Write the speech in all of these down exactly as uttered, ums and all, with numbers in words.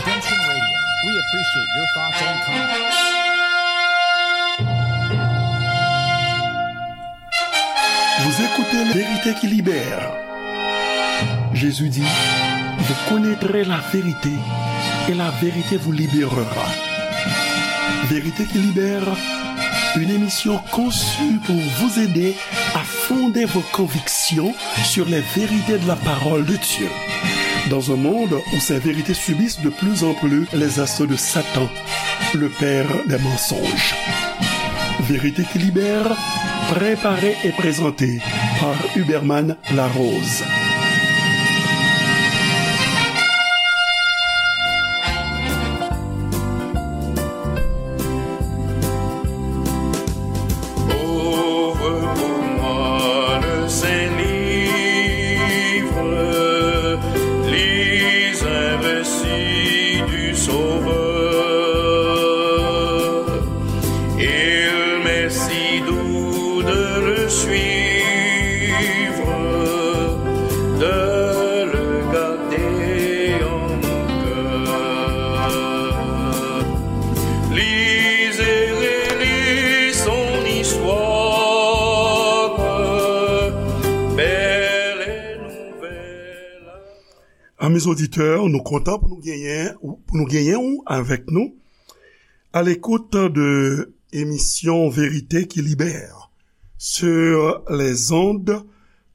Attention Radio, we appreciate your thoughts and comments. Vous écoutez La Vérité qui libère. Jésus dit, vous connaîtrez la vérité et la vérité vous libérera. Vérité qui libère, une émission conçue pour vous aider à fonder vos convictions sur les vérités de la parole de Dieu. Dans un monde où ces vérités subissent de plus en plus les assauts de Satan, le père des mensonges. Vérité qui libère, préparée et présentée par Huberman Larose. Ouvre pour moi le saint livre, lis un récit du Sauveur. Il m'est si doux de le suivre, de le garder en mon cœur. Lis et relis son histoire, belle et nouvelle. Amis auditeurs, nou kontan pou nou genyen, pou nou genyen ou avèk nou à l'écoute de émission Vérité qui libère sur les ondes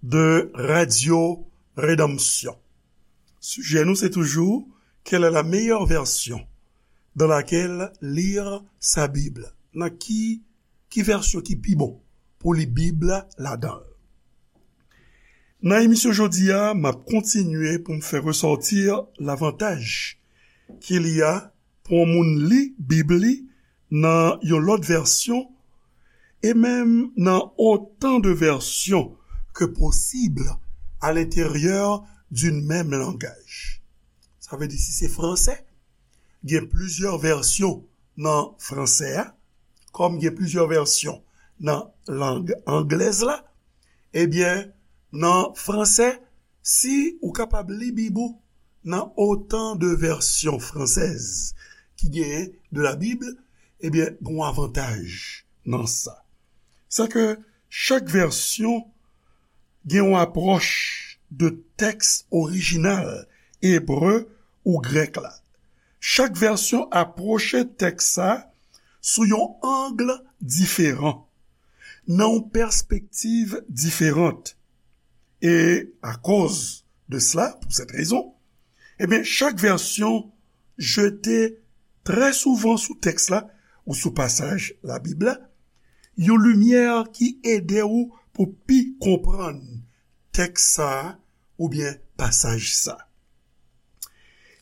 de Radio Rédemption. Sijè nou se toujou, quelle est la meilleure version dans laquelle lire sa Bible? Nan ki, ki vèsyon ki pi bon pou li Bib la ladan l? Nan emisyon jodi a, m ap kontinye pou m fè resòti lavantaj qu'il y a pou yon moun li Bib li nan yon lòt vèsyon, e menm nan autant de versions que possible à l'intérieur d'une même langage. Sa vle di, si se fransè, gen plizyè vèsyon nan fransè a, kòm gen plizyè vèsyon nan lang anglèz la, ebyen, nan fransè, si ou kapab li Bib ou nan autant de versions françaises ki genyen de la Bible, ebyen, gen yon avantaj nan sa. Sa ke chak vèsyon gen yon apwòch de tèks orijinal ebre ou grèk la. Chak vèsyon apwoche tèks sa sou yon ang diferan, nan yon pèspektiv diferan. E akoz de sela, pou sèt rezon, ebyen, chak vèsyon jete trè souvan sou tèks la ou sou pasaj Labib la, yon limyè ki ede w pou pi konprann tèks sa a oubyen pasaj sa.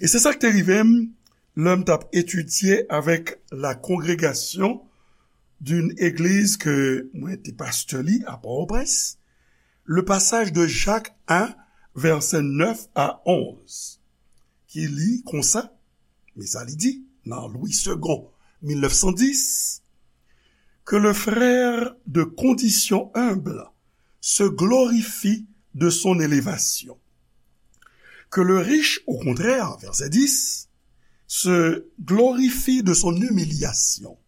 E se sa k te rive m lè m t ap etidye avèk la congrégation d'une église ke mwen te pastè li a Pòtoprens, le passage de Jacques un, verset neuf à onze, ki li konsa, men sa li di nan Louis Segond, mil nèf san dis, que le frère de condition humble se glorifie de son élévation. Que le riche, au contraire, verset dix, se glorifie de son humiliation,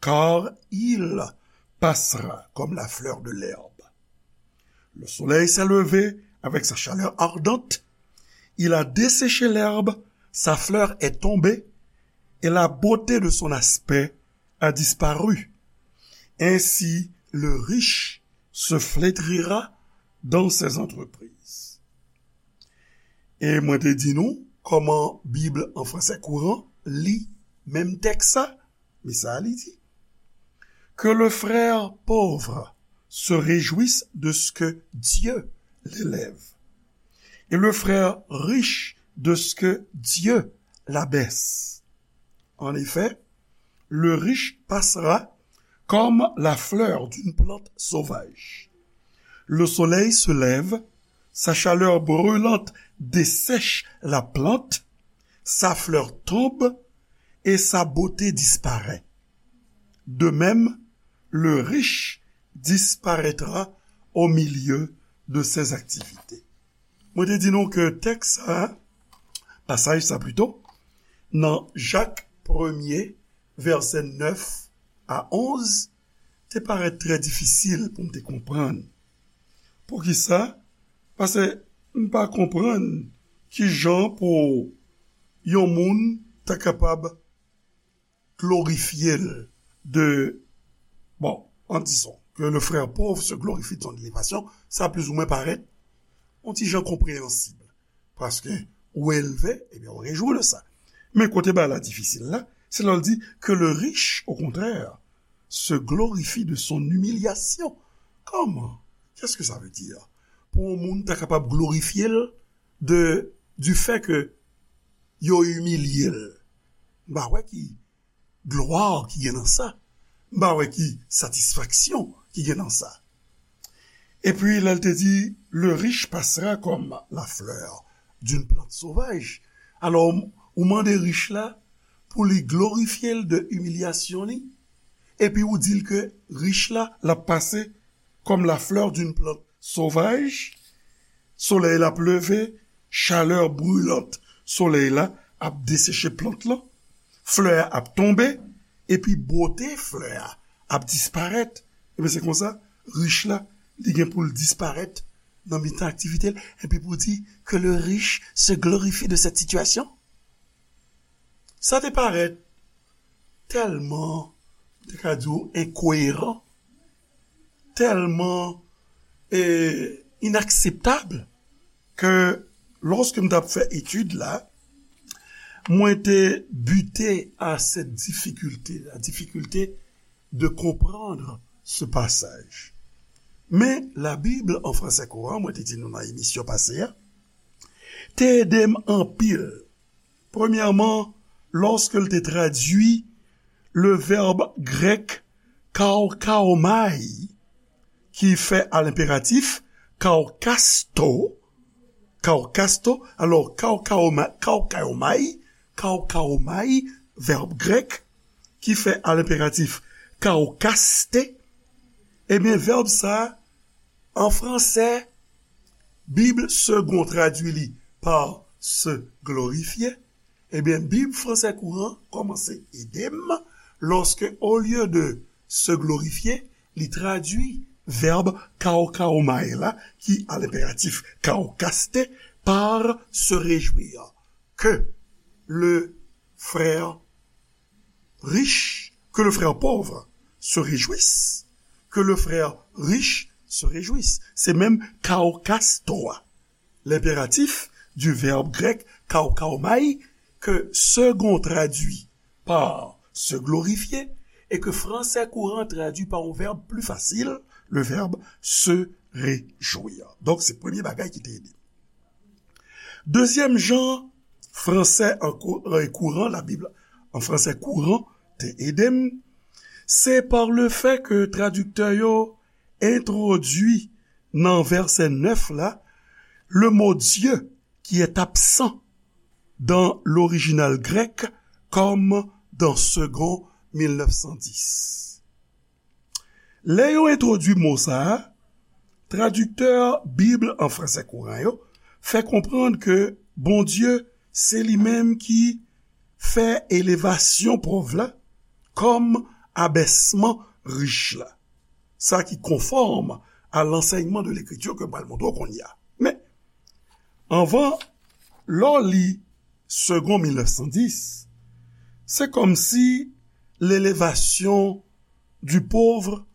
car il passera comme la fleur de l'herbe. Le soleil s'est levé avec sa chaleur ardente, il a desséché l'herbe, sa fleur est tombée, et la beauté de son aspect a disparu. Ainsi, le riche se flétrira dans ses entreprises. E mwen te di nou kòman Bib an fransè kouran li menm tèks sa, men sa li di, que le frère pauvre se réjouisse de ce que Dieu l'élève, et le frère riche de ce que Dieu l'abaisse. En effet, le riche passera comme la fleur d'une plante sauvage. Le soleil se lève, sa chaleur brûlante dessèche la plante, sa fleur tombe et sa beauté disparaît. De même, le riche disparaîtra au milieu de ses activités. Mwen te di nou ke tèks sa, pasaj sa pito, nan Jak premye, vèsè nèf a onz, te parèt trè difisil pou m te konprann. Poukisa? Paske m pa konprann ki jan pou yon moun ta kapab glorifye l de, bon, en disant que le frère pauvre se glorifie de son élévation, sa plizoumwen parèt yon ti jan konpreyansib. Paske ou elve, ebyen, ou rejwi de sa. Men kote bagay la difisil la, se lè l di que le riche, au contraire, se glorifie de son humiliation. Comment? Qu'est-ce que ça veut dire? Pou yon moun ta kapab glorifye l de, du fait que yo imilye l. M pa wè ki glwa ki gen nan sa. M pa wè ki satisfaksyon ki gen nan sa. Epi lè l te di, le riche passera comme la fleur d'une plante sauvage. Alò, ou mande rich la pou li glorifye l de imilyasyon li, epi ou di l ke rich la, l ap pase comme la fleur d'une plante sauvage, solèy la ap leve, chalè brilant solèy la ap deseche plant lan, flè a ap tonbe, epi bote flè a ap disparèt. Ebyen, se konsa, rich la, li gen pou l disparèt nan mitan aktivite l, epi pou di que le riche se glorifie de cette situation. Sa te parèt tèlman, m te ka di w, enkoyeran, tèlman, e, inakseptab, ke lòske m t ap fè etid la, mwen te bite à cette difficulté, la difficulté de comprendre ce passage. Men, la Bible en français courant, mwen te di nou nan emisyon pase a, te ede m anpil. Premyèman, lòske l te tradui le vèb grèk kaukaomai, ki fè a lenperatif kaukasto, kaukasto, alò, kaukaoma-, kaukaomai, kaukaomai, vèb grèk, ki fè a lenperatif kaukaste, ebyen, vèb sa a, an fransè, Bib Segond tradui li pa se glorifier, ebyen, Bib Français Courant kòmanse ede m, lòske, olye de se glorifier, li tradui vèb kaukaomai la, ki a lenperatif kaukaste, par se réjouir. Que le frère riche, que le frère pauvre se réjouisse, que le frère riche se réjouisse. Se menm kaukasto a. L'impératif du verbe grec kaukaomai, que Segond traduit par se glorifier, et que Français Courant traduit par un verbe plus facile, le verbe se réjouir. Donk, se premye bagay ki te ede. Dezyèm jan fransè an kou-, an kouran, la Bible en français courant, te ede m, se par le fait que tradiktè yo entwodui nan vèsè nèf la, le mot Dieu qui est absent dans l'original grec comme dans Segond mil nèf san dis. Lè yo entwodui mo sa a, tradiktè Bib an fransè kouran yo fè konprann ke Bondye se li menm ki fè elevasyon pòv la kòm abèsman rich la. Sa ki konfòm a lansèyman de Lekriti ke m pral montre w kounye a. Men, anvan, lè w li Segond mil nèf san dis, se kòmsi l'élevation du pauvre,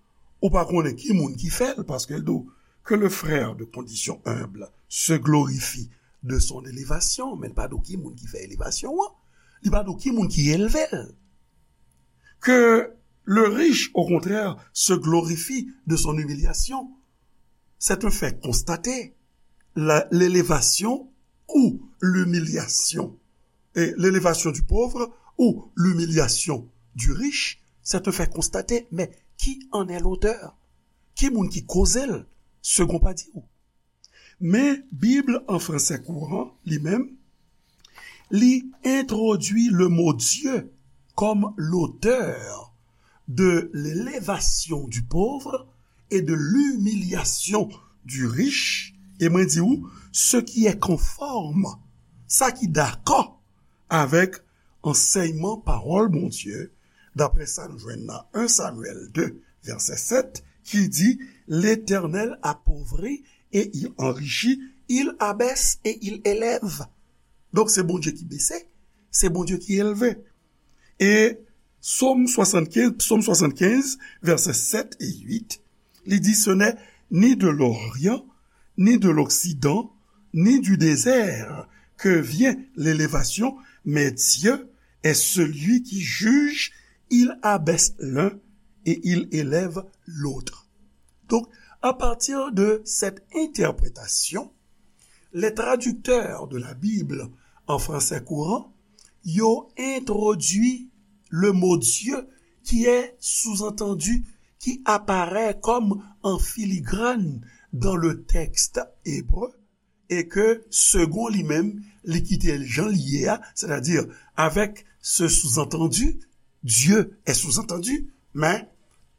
ou pa konnen ki moun ki fè l, paske l di w que le frère de condition humble se glorifie de son élévation, men l pa di w ki moun ki fè elevasyon an, li pa di w ki moun ki elve l. Que le riche, au contraire, se glorifie de son humiliation, c'est un fait constaté. La, l'élévation ou l'humiliation, et l'élévation du pauvre ou l'humiliation du riche, c'est un fait constaté. Mais qui en est l'auteur? Ki moun ki koze l? Segond pa di w. Men Bib an fransè kouran, li menm, li entwodui le mot Dieu comme l'auteur de l'élévation du pauvre et de l'humiliation du riche, e mwen di w, ce qui est conforme, sa ki dakò avèk ansèyman pawòl Bondye, daprè sa nou jwenn nan en Samyèl de, vèsè sèt, ki di, L'Éternel appauvrit et il enrichit, il abaisse et il élève. Donk, se Bondye ki bese, se Bondye ki elve. E Sòm swasannkenz, Sòm swasannkenz, vèsè sèt e uit, li di, Ce n'est ni de l'Orient, ni de l'Occident, ni du désert que vient l'élévation, mais Dieu est celui qui juge, il abaisse l'un et il élève l'autre. Donc, à partir de cette interprétation, les traducteurs de la Bible en français courant, yo entwodui le mot Dieu qui est sous-entendu, qui apparaît comme en filigrane dans le texte hébreu, e ke segon li menm, li kite l jan li ye a, sètadi avèk ce sous-entendu, Dieu est sous-entendu, men,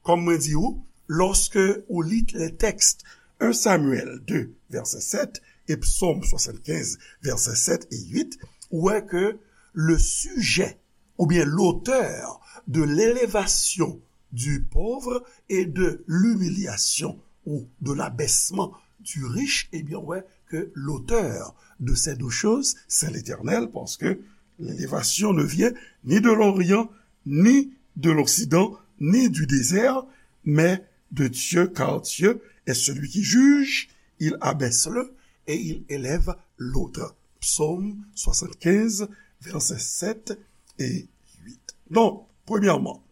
kòm mwen di ou, lòske ou li le texte en Samyèl de, vèsè sèt, e Sòm swasannkenz, vèsè sèt e uit, ou wè ke le sujet ou bien l'auteur de l'élévation du pauvre et de l'humiliation ou de l'abaissement du riche, eh bien, ouais, que l'auteur de ces deux choses, c'est l'Éternel, parce que l'élévation ne vient ni de l'Orient, ni de l'Occident, ni du désert, mais de Dieu, car Dieu est celui qui juge, il abaisse l'un et il élève l'autre. Psaume soixante-quinze, versets sept et huit. Donc, premièrement,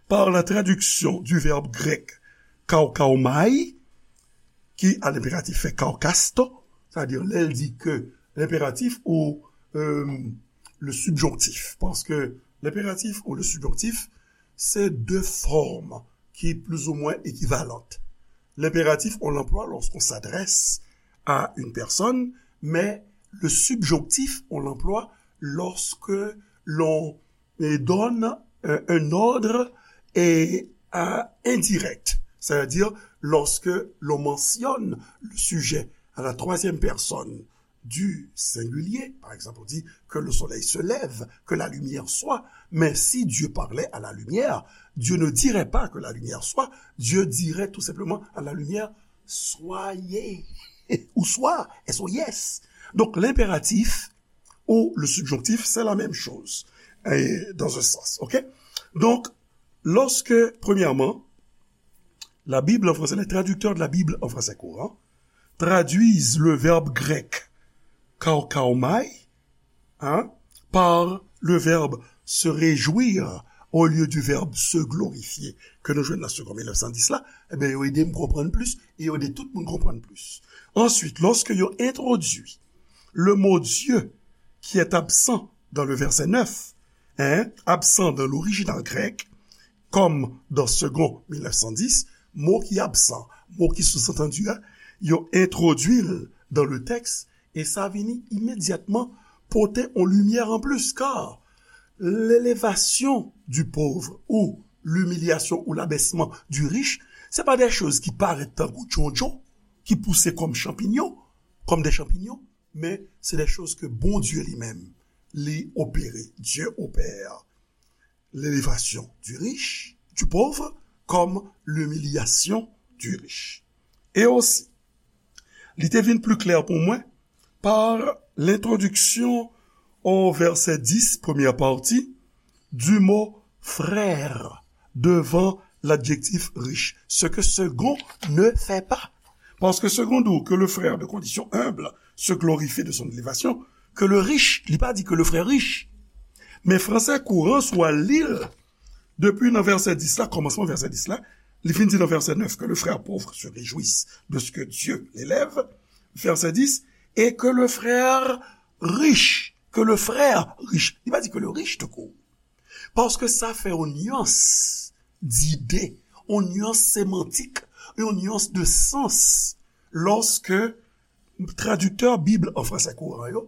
par la traduction du verbe grec kaukaomai, qui à l'impératif fait kaukasto, c'est-à-dire, lè l di ke l'impératif ou, euh, le subjonctif, parce que l'impératif ou le subjonctif, c'est deux formes qui plus ou moins équivalentes. L'impératif, on l'emploie lorsqu'on s'adresse à une personne, mais le subjonctif, on l'emploie lorsque l'on, euh, donne, euh, un ordre et, euh, indirect, c'est-à-dire lorsque l'on mentionne le sujet à la troisième personne du singulier, par exemple, on dit que le soleil se lève, que la lumière soit. Mais si Dieu parlait à la lumière, Dieu ne dirait pas que la lumière soit, Dieu dirait tout simplement à la lumière, soyez, ou soit, S O I S. Donc, l'impératif ou le subjonctif, c'est la même chose, et dans un sens, ok? Donc, lorsque, premièrement, la Bible en français, les traducteurs de la Bible en français courant traduisent le verbe grec kaukaomai, hein, par le verbe se réjouir au lieu du verbe se glorifier, ke nou jwenn nan Segond mil nèf san dis la, ebyen, yo ede m konprann plis, e yo ede tout moun konprann plis. Ensuite, lorsque yo entwodui le mot Dieu qui est absent dans le verset neuf, hein, absent dans l'original grec, comme dans Segond mil nèf san dis, mo ki absan, mo ki sou-antandi a, yo entwodui l dans le texte, e sa vini imedyatman pote yon limyè anplis, car l'élévation du pauvre ou l'humiliation ou l'abaissement du riche, se pa de choz ki parèt tankou djondjon, ki pouse kòm chanpinyon, comme des champignons, men se de choz ke Bondye li menm, li opere. Dieu opère l'élévation du riche, du pauvre, comme l'humiliation du riche. Et aussi, li te vin pli klè pou mwen par l'introduction au verset dix, première partie, du mot frère devant l'adjectif riche, ce que Segond ne fait pas. Parce que Segond dit que le frère de condition humble se glorifie de son élévation, que le riche, li pa di que le frère riche. Men fransè kouran, si w al li l, depi nan vèsè dis la, kòmansman vèsè dis la, li fin di nan vèsè nèf que le frère pauvre se réjouisse de ce que Dieu l'élève, vèsè dis, et que le frère riche, que le frère riche, li pa di que le riche tout court. Paske sa fè yon nyans dide, yon nyans semantik, yon nyans de sans, lòske tradiktè Bib an fransè kouran yo,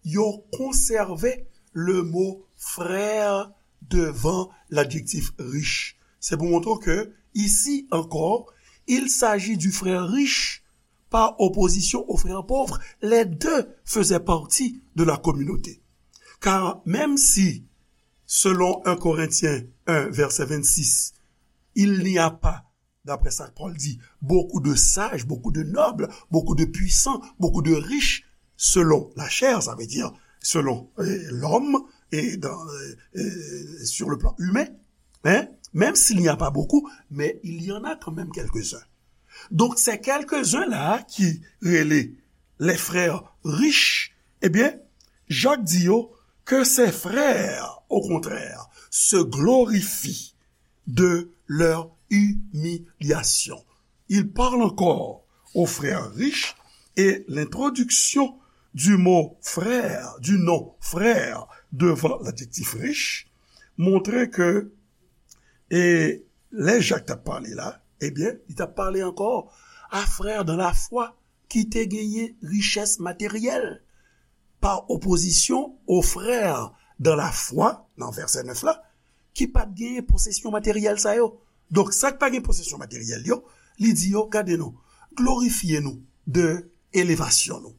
yo konsève le mo frère devant l'adjectif riche. Se pou montre ke, ici encore, il s'agit du frère riche par opposition au frère pauvre. Les deux faisaient partie de la communauté. Car même si, selon un Corinthiens un, verset vingt-six, il n'y a pas, d'après ça Paul dit, beaucoup de sages, beaucoup de nobles, beaucoup de puissants, beaucoup de riches, selon la chair, ça veut dire selon euh, l'homme et dans, euh, euh, sur le plan humain, hein, même s'il n'y a pas beaucoup, mais il y en a quand même quelques-uns. Donc, ces quelques-uns-là qui relaient les frères riches, eh bien, Jacques dit yo, que ces frères, au contraire, se glorifient de leur humiliation. Il parle encore aux frères riches et l'introduction du mot frère, du nom frère, devant l'adjectif riche, montre que e lè Jak t ap pale la, ebyen, li t ap pale ankò a frè dan lafwa ki te genyen richès materyèl, pa opozisyon o frè dan lafwa, nan vèsè nèf la, ki pa t genyen posesyon materyèl sa yo. Donk, sa k pa gen posesyon materyèl yo, li di yo, gade nou, glorifye nou de elevasyon nou.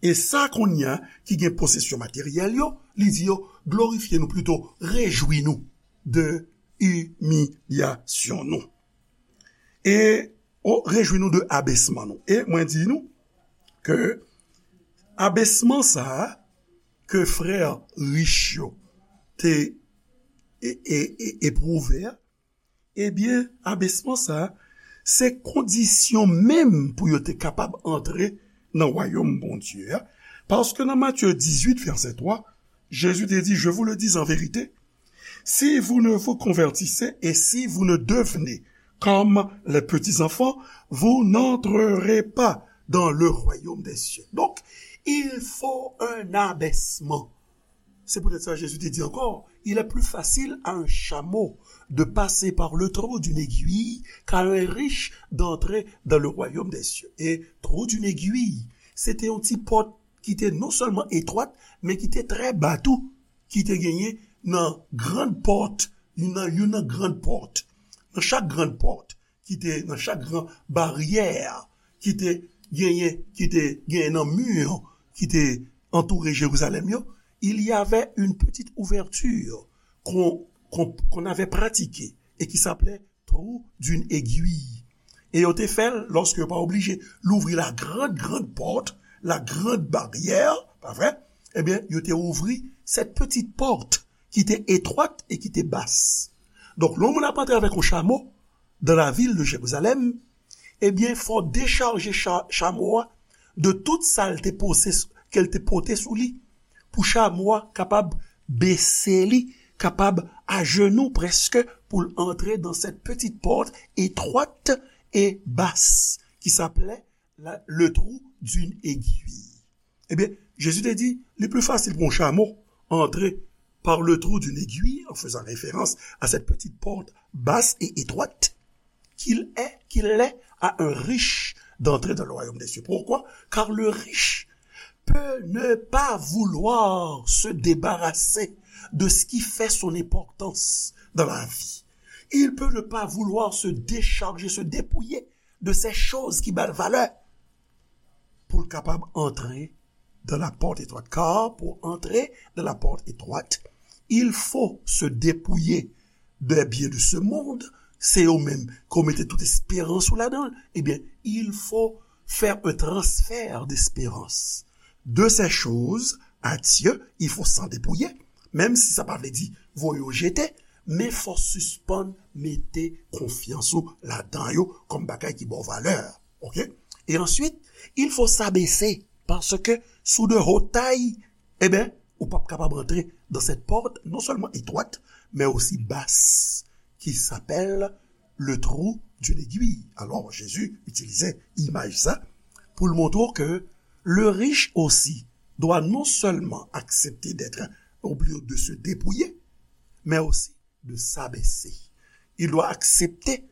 E sa kounye a ki gen posesyon materyèl yo, li di yo, glorifye nou, plito, rejwi nou de imilyasyon nou. E, o, rejwi nou de abesman nou. E mwen di nou ke abesman sa a ke frè rich yo te e, e, e, epwouve a, ebyen, abesman sa a, se kondisyon menm pou yo te kapab antre nan wayòm Bondye a. Paske nan Matye dizuit, vèsè twa, Jezi te di, je vous le dis en vérité, si vous ne vous convertissez et si vous ne devenez comme les petits enfants, vous n'entrerez pas dans le royaume des cieux. Donc, il faut un abaissement. C'est peut-être ça Jésus te dit encore, il est plus facile à un chameau de passer par le trou d'une aiguille qu'à un riche d'entrer dans le royaume des cieux. Et trou d'une aiguille, se te yon ti pòt ki te non sèlman etwat, men ki te trè ba tou, ki te genyen nan grann pòt, youn nan, youn nan grann pòt, nan chak grann pòt, ki te nan chak gran baryè, ki te genyen, ki te genyen nan mi ki te antoure Jerizalèm yo, il y avait une petite ouverture qu'on, qu'on, qu'on avait pratiquée et qui s'appelait trou d'une aiguille. E yo te fè l lòske yo pa oblije louvri la grande, grande porte, la grande barrière, pa vre? Ebyen, yo te ouvri cette petite porte qui était étroite et qui était basse. Donk, lè yon moun ap antre avèk yon chamo dans la ville de Jérusalem, ebyen, fò dechaje cha, chamo a de tout sa l te pose, ke l te pote sou li, pou chamo a kapab bese li, kapab ajenou prèske pou l antre dans cette petite porte étroite et basse qui s'appelait la, le trou d'une aiguille. Ebyen, Jezi te di, li pli fasil pou yon chamo antre par le trou d'une aiguille, en faisant référence à cette petite porte basse et étroite, qu'il est, qu'il l'est à un riche d'entrer dans le royaume des cieux. Pourquoi? Car le riche peut ne pas vouloir se débarrasser de ce qui fait son importance dans la vie. Il peut ne pas vouloir se décharger, se dépouiller de ces choses qui ba l valè pou l kapab antre dans la porte étroite. Car pour entrer dans la porte étroite, il faut se dépouiller des biens de ce monde. Se yo menm ke w mete tout esperans ou ladan l. Ebyen, il faut faire un transfert d'espérance. De ces choses à Dieu, il faut s'en dépouiller. Menm si sa pa vle di voye yo jete, men fò sispann mete konfyans ou ladan yo kòm bagay ki ba w valè. Oke? E answit, il faut s'abaisser, paske sou de haute taille, ebyen, ou p ap kapab antre dans cette porte non seulement étroite, mais aussi basse, qui s'appelle le trou d'une aiguille. Alors, Jésus utilisait imaj sa pou l montre w ke le riche aussi doit non seulement accepter d'être obligé de se dépouiller, mais aussi de s'abaisser. Il doit accepter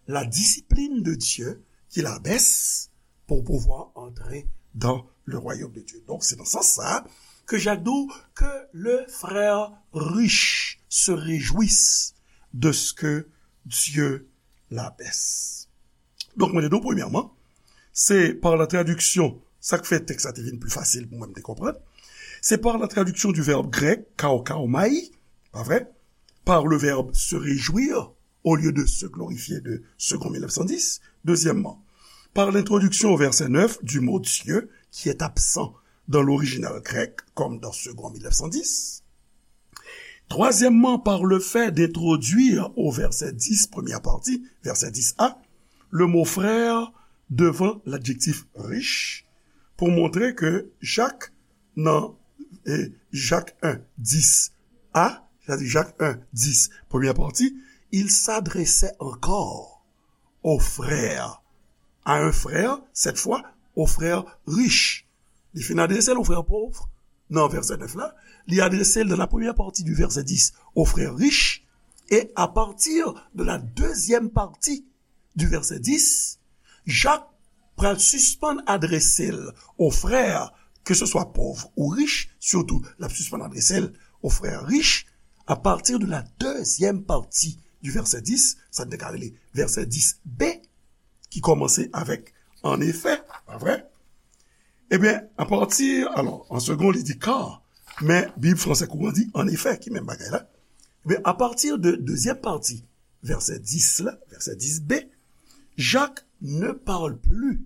la discipline de Dieu qui l'abaisse pour pouvoir entrer dans le royaume de Dieu. Donc, c'est dans ce sens-là que Jacques dit que le frère riche se réjouisse de ce que Dieu l'abaisse. Donk, mwen te di w, premyèman, se pa la tradiksyon, sa k fè tèks la te vin pli fasil pou mwen, m te konprann. C'est par la traduction du verbe grec kaukaomai, pas vrai, par le verbe se réjouir au lieu de se glorifier de Segond mille neuf cent dix. Deuxièmement, par l'introduction au verset neuf du mot Dieu qui est absent dans l'original grec, comme dans Segond mille neuf cent dix. Troisièmement, par le fait d'introduire au verset dix, première partie, verset dix a, le mot frère devant l'adjectif riche, pou montre ke Jacques nan eh, Jacques un, dix a, c'est-à-dire Jacques un, dix, première partie, il s'adressait encore aux frères, à un frère, cette fois, aux frères riches. Li fin adrese l aux frères pauvres, nan vèsè nèf la, li adrese l dans la première partie du verset dix aux frères riches, et à partir de la deuxième partie du verset dix, Jacques pral sispann adrese l aux frères, que ce soit pauvres ou riches, surtout, l ap sispann adrese l aux frères riches, à partir de la deuxième partie du verset dix, sa n te ka rele vèsè dix b, ki kòmanse avèk en effet, pa vre? Ebyen, apati, alò, an segon, li di car, men Bib fransè kouran di en effet, ki menm bagay la. Ebyen, apati de dezyèm pati vèsè dix la, vèsè dix b, Jacques ne parle plus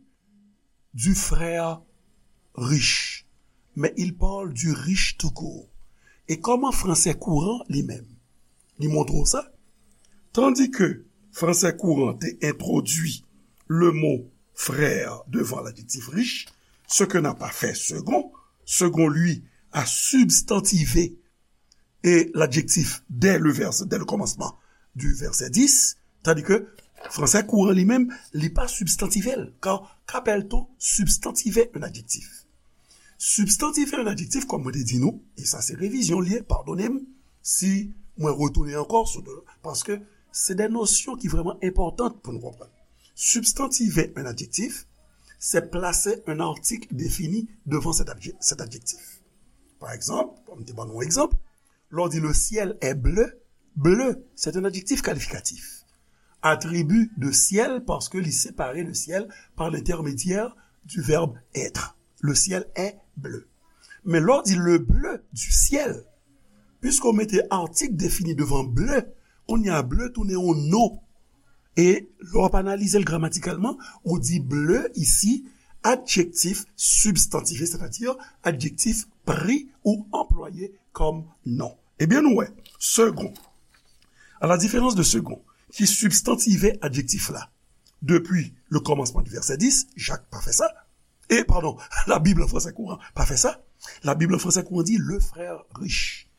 du frère riche, mais il parle du riche tout court. E kòman fransè kouran li menm, li montre w sa? Tandis que fransè kouran te entwodui le mot frère devant l'adjectif riche, ce que n'a pas fait Segond. Segond, lui, a substantivé et l'adjectif dès le vers, dès le commencement du verset dix, tandis que fransè kouran li menm, li pa substantivé l. Car qu'appelle-t-on substantiver un adjectif? Substantiver un adjectif, kòm mwen te di nou, e sa se revizyon l ye, padone m si mwen retounen ankò sou, paske se de nosyon ki vrèman enpòtan pou nou konprann. Substantiver un adjectif, c'est placer un article défini devant cet adje-, cet adjectif. Par exemple, kòm m te ban nou yon egzanp, lè w di le ciel est bleu, bleu, c'est un adjectif qualificatif. Attribut de ciel, paske li separe le ciel par l'intermédiaire du verbe être. Le ciel est bleu. Men lè w di le bleu du ciel, puiske w mete article défini devan bleu, kounye a bleu tounen yon non. E lè w ap analize l gramatikalman, ou di bleu ici, adjectif substantivé, c'est-à-dire adjectif pris ou employé comme nom. Ebyen, nou wè, Segond, à la différence de Segond, ki substantivé adjektif la depi le kòmansman di vèsè dis, Jacques pa fè sa. E, padon, Labib an fransè kouran pa fè sa. Labib an fransè kouran di le frère riche.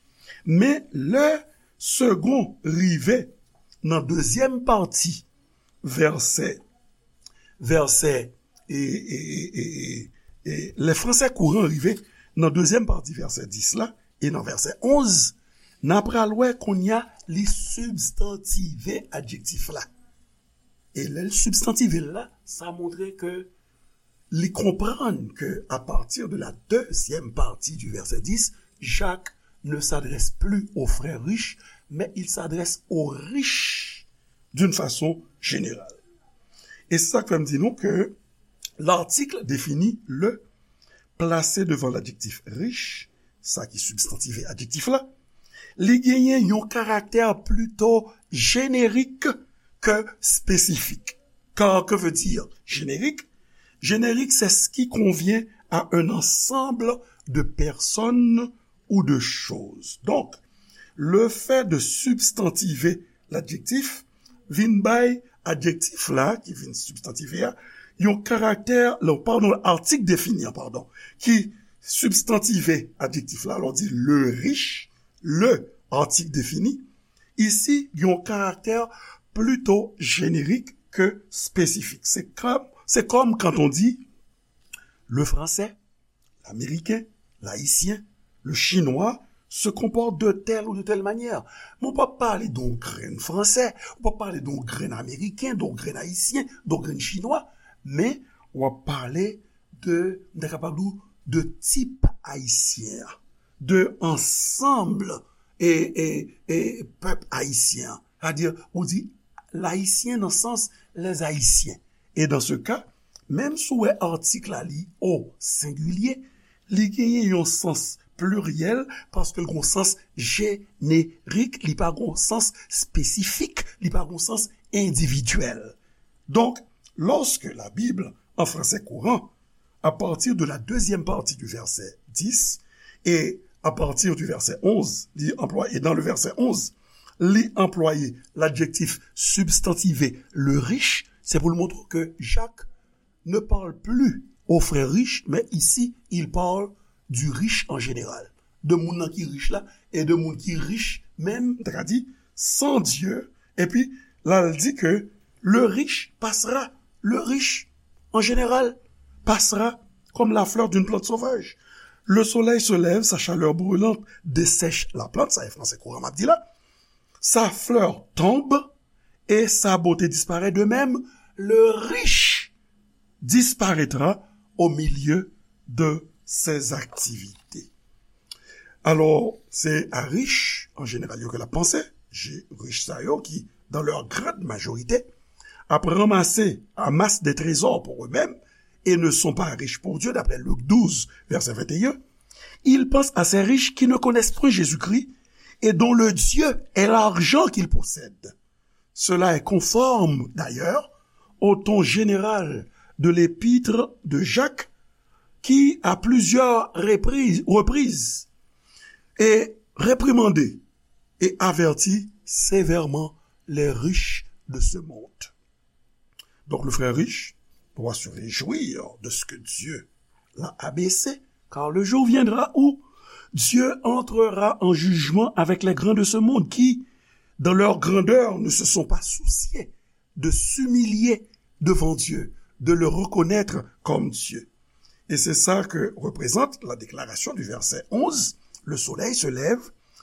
Men lè Segond rive nan dezyèm pati vèsè, vèsè, e, e, e, e, e, lè fransè kouran rive nan dezyèm pati vèsè dis la, e nan vèsè onz, n a pral wè kounye a li sibstantive adjektif la. E lè l sibstantive l la, sa montre ke li konprann ke, à partir de la deuxième partie du verset dix, Jacques ne s'adresse plus aux frères riches, mais il s'adresse aux riches d'une façon générale. E se sa k fè m di nou ke l'article défini le, plase devan ladjektif riche, sa ki sibstantive adjektif la, li genyen yon karaktè plito jenerik ke espesifik. Car que veut dire générique? Générique, c'est ce qui convient à un ensemble de personnes ou de choses. Donc, le fait de substantiver l'adjectif vin bay adjektif la, ki vin sibstantive a, yon karaktè, non, padon, article défini an, padon, ki sibstantive adjektif la, lè w di le riche, le article défini, ici, yon karaktè plito jenerik ke espesifik. Se kòm, se kòm quand on dit le français, l'américain, l'haïtien, le chinois se comporte de telle ou de telle manière. Men w p ap pale de yon grenn fransè, ou p ap pale de yon grenn ameriken, de yon grenn ayisyen, de yon grenn chinwa, men w ap pale de, m ta kapab di w, de tip ayisyen an, de ansanm e, e, e pèp ayisyen an. Sètadi, ou di layisyen nan sans les Haïtiens. E dans ce cas, menm si w wè article la li o sengilye, li genyen yon sans pliryèl, paske l gon sans jenerik, li pa gon sans espesifik, li pa gon sans endividyèl. Donk, lorsque la Bible en français courant, à partir de la deuxième partie du verset dix et à partir du verset onze, li anplwaye, dans le verset onze, li anplwaye l'adjectif substantivé le riche, c'est pour le montrer que Jacques ne parle plus aux frères riches, mais ici, il parle du riche en général. De moun nan ki rich la, e de moun ki rich menm, ta ka di, sans Dieu. Epi, la, l di ke le riche passera, le riche, en général, passera comme la fleur d'une plante sauvage. Le soleil se lève, sa chaleur brûlante dessèche la plante, sa e fransè kouran m ap di la. Sa fleur tombe et sa beauté disparaît. De même, le riche disparaîtra au milieu de ses activités. Alò, se a rich, an jeneral, yo ke l ap panse, je, rich sa yo ki, dans leur grande majorité, ap ranmase, amassent des trésors pour eux-mêmes et ne sont pas riches pour Dieu, d'après Luc douze, verset vingt et un. Il pense à ces riches qui ne connaissent point Jésus-Christ et dont le Dieu est l'argent qu'ils possèdent. Cela est conforme, d'ailleurs, au ton général de l'épître de Jacques, qui, à plusieurs reprises, reprises, et réprimandé et averti sévèrement les riches de ce monde. Donc le frère riche doit se réjouir de ce que Dieu l'a abaissé, car le jour viendra où Dieu entrera en jugement avec les grands de ce monde qui, dans leur grandeur, ne se sont pas souciés de s'humilier devant Dieu, de le reconnaître comme Dieu. Et c'est ça que représente la déclaration du verset onze. Le soleil se lève,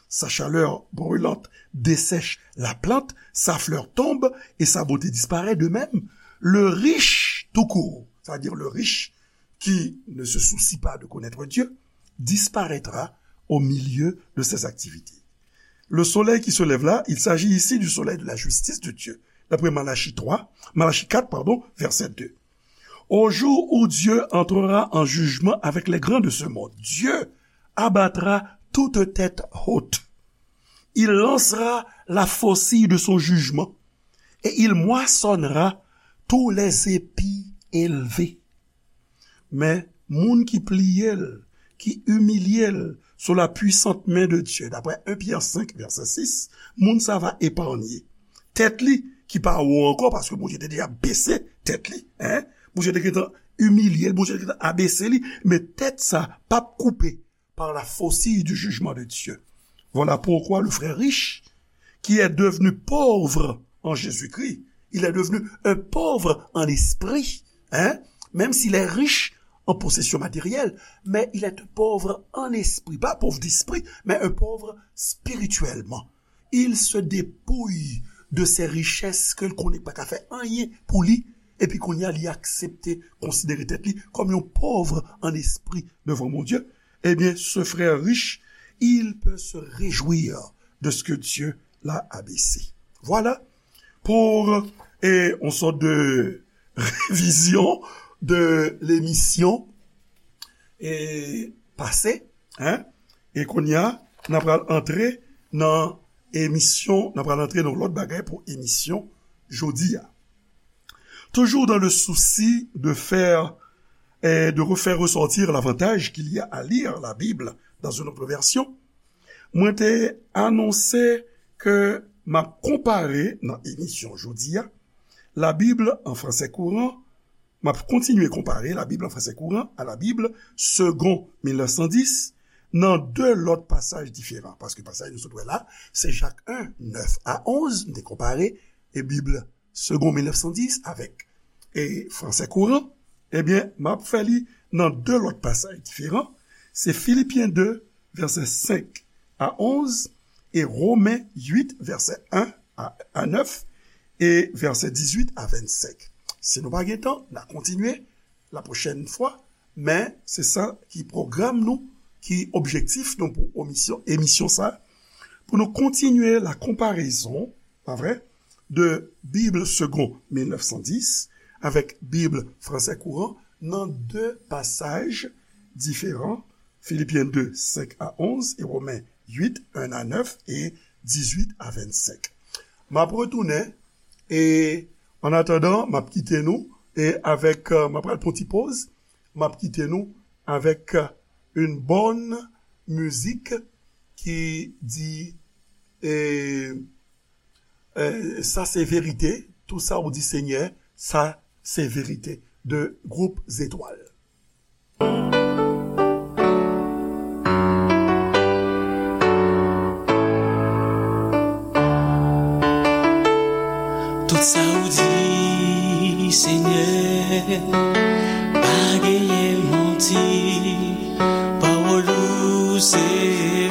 sa chaleur brûlante dessèche la plante, sa fleur tombe et sa beauté disparaît. De même, le riche tout court, c'est-à-dire le riche qui ne se soucie pas de connaître Dieu, disparaîtra au milieu de ses activités. Le soleil qui se lève là, il s'agit ici du soleil de la justice de Dieu, d'après Malachie trois, Malachie quatre, pardon, verset deux. Au jour où Dieu entrera en jugement avec les grands de ce monde, Dieu abattra toute tête haute. Il lancera la faucille de son jugement et il moissonnera tous les épis élevés. Men moun ki pliye l, ki imilye l sou la puisant men de Dye, d'après un Pierre cinq, verset six, moun sa va eparnye. Tèt li, ki pa wo ankò, paske Bondye te deja bese tèt li, hein? Bondye te gentan imilye l, Bondye te gentan abese li, men tèt sa p ap koupe par la faucille du jugement de Dieu. Voilà pourquoi le frère riche, qui est devenu pauvre en Jésus-Christ, il est devenu un pauvre en esprit, hein? Même s'il est riche en possession matérielle, mais il est un pauvre en esprit, pas pauvre d'esprit, mais un pauvre spirituellement. Il se dépouille de ses richesses ke l konnen pa ka fè anyen pou li, epi kounye a li aksepte konsidere tèt li kòm yon pòv an espri devan Bondye, ebyen, ce frère riche, il peut se réjouir de ce que Dieu l'a abaissé. Voilà pour, eh, une sorte de révision de l'émission, eh, passée, hein? E kounye a, n a pral antre nan emisyon, n a pral antre nan lòt bagay pou emisyon jodi a. Toujours dans le souci de faire, eh, de refaire ressortir l'avantage qu'il y a à lire la Bible dans une autre version, mwen te anonse ke m ap konpare nan emisyon jodi a, la Bible en français courant, m ap kontinye konpare la Bible en français courant à la Bible Segond mil nèf san dis nan de lòt pasaj diferan. Paske pasaj nou sot wè la, se Jak un, nèf a onz, m te konpare, e Bib Segond mil nèf san dis avèk, e, Français courant. Ebyen, m ap fè li nan de lòt pasaj diferan. Se Filipyen de, vèsè senk a onz, e Women uit, vèsè en a, a nèf, e vèsè dizuit a vennsenk. Si nou pa gen tan, n a kontinye la pwochèn fwa, men se sa ki pwogram nou, ki objektif nou pou emisyon, emisyon sa, pou nou kontinye la konparezon, pa vre, de Bib Segond mil nèf san dis avèk Bib Français courant nan de pasaj diferan Filipyen de, senk a onz, e Women uit, en a nèf, e dizuit a vennsenk. M ap retounen, e an atandan, m ap kite nou, e avèk, euh, m ap pral pran ti poz, m ap kite nou avèk, euh, une bonne musique ki di, e, e, sa se verite, tout sa ou di Senyè, sa se verite, de gwoup Zetwal. Tout sa ou di, Senyè, pa genyen manti, pawòl ou se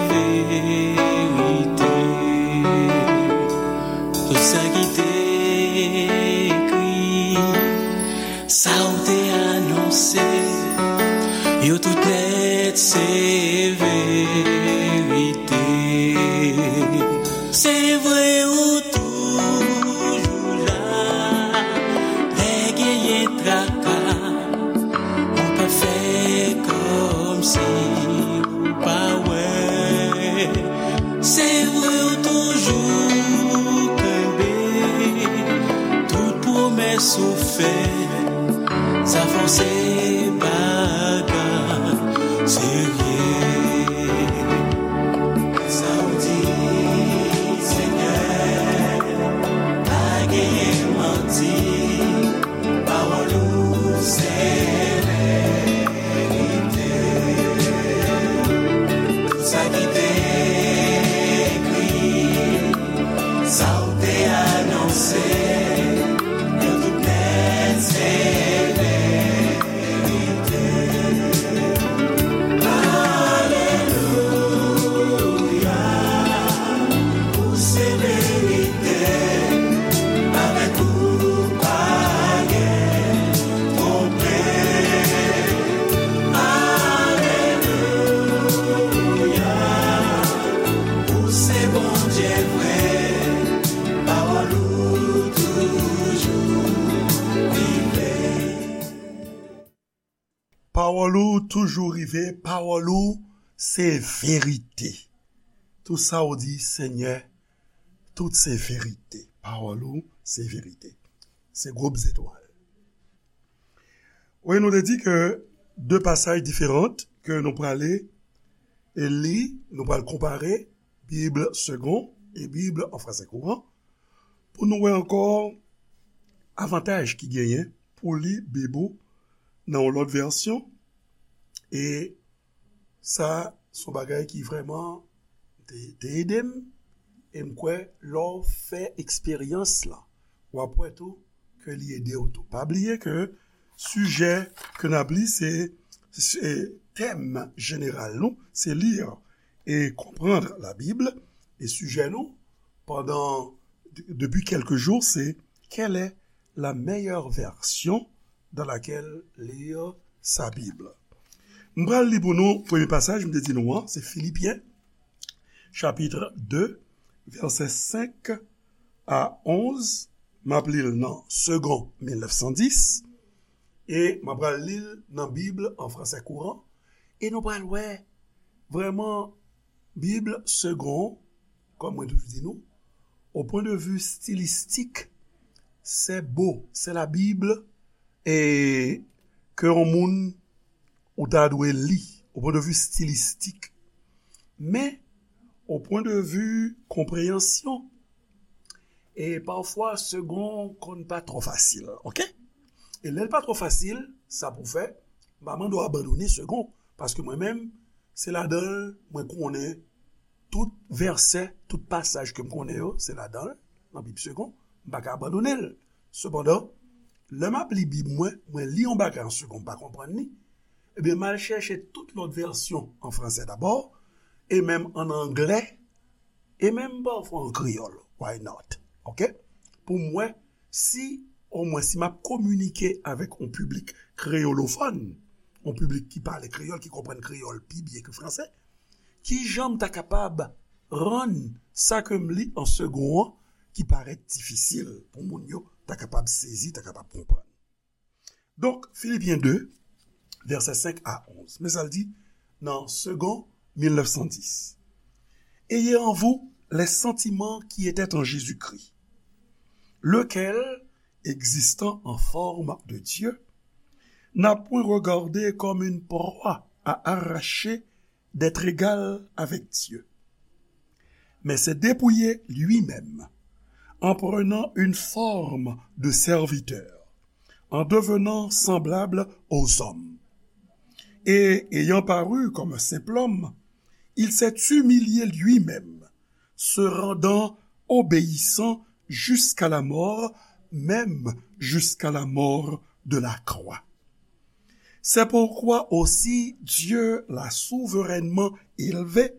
verite. Tout sa ki te ekri, sa ou te anonse, yo tout nèt se verite. Se vre ou toujou la, lè genyen traka, ou pa fè kòmsi ou pa wè. Se vre ou toujou kenbe tout pwomès ou fè. Sa fò se bagay serye. Sa ou di, Senyè, pa genyen manti. Pawòl ou se verite. Tout sa ki te ekri, sa ou te anonse, yo tout nèt se verite. Alelouya, ou se verite, avèk ou pa gen twonpe. Alelouya, ou se Bondye vre, pawòl ou toujou rive. Pawòl ou toujou rive, pawòl ou se verite. Tout sa ou di, Senyè, tout se verite. Pawòl ou se verite. Se gwoup Zetwal. Wi, nou te di ke de pasaj diferan ke nou prale e li, nou pral konpare Bib Segond e Bib an fransè kouran pou nou wè ankò avantaj ki genyen pou li Bib ou nan yon lòt vèsyon. E sa, se yon bagay ki vrèman te, te ede m. E m kwè, lè w fè eksperyans lan, w ap wè tou ke li ede w tou. Pa bliye ke sijè ke n ap li, se, se tèm jeneral nou, se lire et comprendre la Bible. E sijè nou, pandan, de- depuis quelques jours, c'est quelle est la meilleure version dans laquelle lire sa Bible. M pral li pou nou premye pasaj, m te di nou an, se Filipyen, chapit de, vèsè senk a onz. M ap li l nan Segond mil nèf san dis, e m ap pral li l nan Bib an fransè kouran, e nou pral wè vrèman Bib Segond, kòm mwen toujou di nou, au point de vue stylistique, c'est beau, c'est la Bible, e ke yon moun ou ta dwe li, au point de vue stylistique. Men, au point de vue konpreyansyon, e pafwa Segond konn pa twò fasil, oke? E lè l pa twò fasil, sa pou fè, m pa mande w abandone Segond, paske mwen menm, se ladan l mwen konnen tout vèsè, tout pasaj ke m konnen yo, se ladan l, nan Bib Segond, m pa ka abandone l. Sepandan, lè m ap li Bib mwen, mwen li yon bagay an Segond, m pa konprann li, ebyen, m al chèche tout lòt vèsyon an fransè dabò, e menm an anglè, e menm pafwa an kreyòl. Why not? Oke? Pou m wè si, omwen, si m ap kominike avèk yon piblik kreyolofòn, yon piblik ki pale kreyòl, ki konprann kreyòl pi byen ke fransè, kijan m ta kapab rann sa ke m li an Segond an ki parèt difisil pou moun yo ta kapab sezi, ta kapab konprann? Donk, Filipyen de, vèsè senk a onz. Men sa l di, nan Segond mil nèf san dis. Ayez en vous les sentiments qui étaient en Jésus-Christ, lequel, existant en forme de Dieu, n'a point regardé comme une proie à arracher d'être égal avec Dieu, mais s'est dépouillé lui-même en prenant une forme de serviteur, en devenant semblable aux hommes. Et ayant paru comme un simple homme, il s'est humilié lui-même, se rendant obéissant jusqu'à la mort, même jusqu'à la mort de la croix. C'est pourquoi aussi Dieu l'a souverainement élevé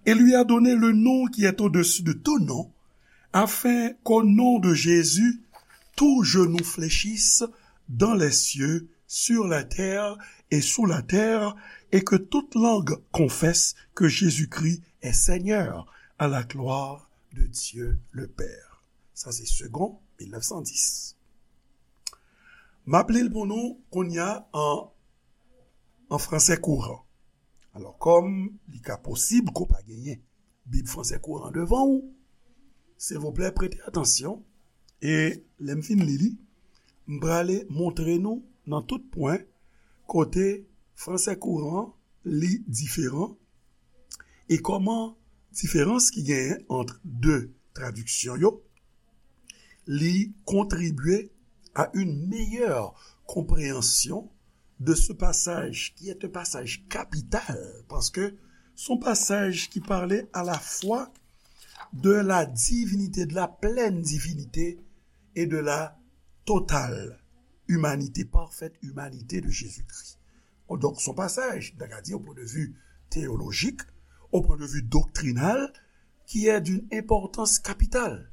et lui a donné le nom qui est au-dessus de tout nom, afin qu'au nom de Jésus, tout genou fléchisse dans les cieux, sur la terre et sous la terre, et que toute langue confesse que Jésus-Christ est Seigneur, à la gloire de Dieu le Père. Sa se Segond mil nèf san dis. M ap li l pou nou kounye a an, an fransè kouran. Alò, kòm li ka posib ke w pa genyen Bib fransè kouran devan w, silvouplè, prete atansyon. E lè m fin li li, m prale montre nou nan tout pwen kote fransè kouran li diferan e kòman diferans ki genyen ant de tradiksyon yo li contribuer à une meilleure compréhension de ce passage qui est un passage capital, paske se yon pasaj ki pale à la fois de la divinité, de la pleine divinité et de la totale humanité, parfaite humanité de Jésus-Christ. Donk, se yon pasaj, nou ta ka di, au point de vue théologique, au point de vue doctrinal, qui est d'une importance capitale.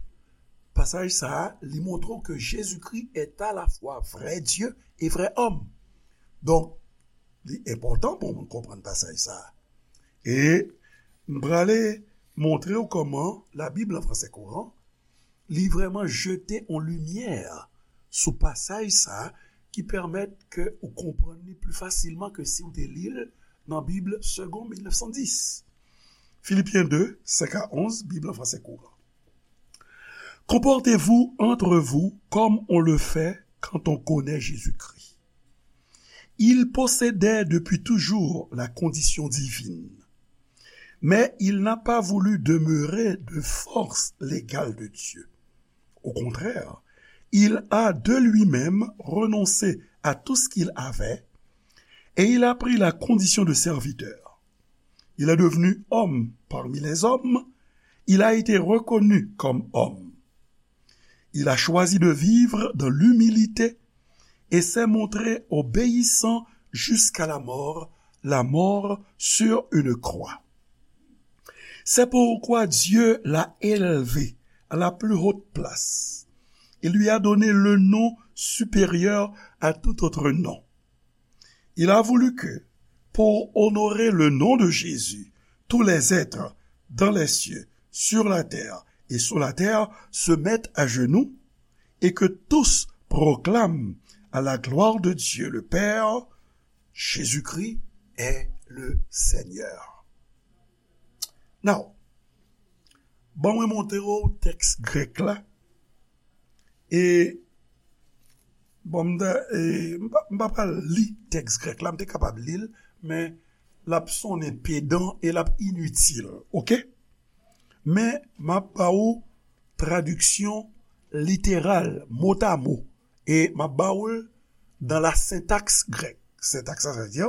Pasaj sa a, li montre w ke Jezikri est à la fois vrai Dieu et vrai homme. Donk, li enpòtan pou moun konprann pasaj sa a. E m prale montre w kòman Labib lan fransè kouran, li vrèman jete yon limyè sou pasaj sa a ki pèmèt ke ou konprann li pli fasilman ke si w te li l nan Bib Segond mil nèf san dis. Filipyen de, senk a onz, Bib lan fransè kouran. Comportez-vous entre vous comme on le fait quand on connaît Jésus-Christ. Il possédait depuis toujours la condition divine, mais il n'a pas voulu demeurer de force l'égal de Dieu. Au contraire, il a de lui-même renoncé à tout ce qu'il avait et il a pris la condition de serviteur. Il est devenu homme parmi les hommes, il a été reconnu comme homme. Il a choisi de vivre dans l'humilité et s'est montré obéissant jusqu'à la mort, la mort sur une croix. C'est pourquoi Dieu l'a élevé à la plus haute place et lui a donné le nom supérieur à tout autre nom. Il a voulu que, pour honorer le nom de Jésus, tous les êtres dans les cieux, sur la terre et sous la terre se mettent à genoux et que tous proclament à la gloire de Dieu le Père, Jésus-Christ est le Seigneur. Now, ban mwen montre w tèks grèk la. E, bon, m ta, e, m pa, m pa pral li tèks grèk la, m te kapab li l, men l ap sonnen pedan e l ap initil, oke? Men, m ap ba ou tradiksyon literal, motamo, e m ap ba ou l dans la syntaxe grecque. Sentaks la, sa vle di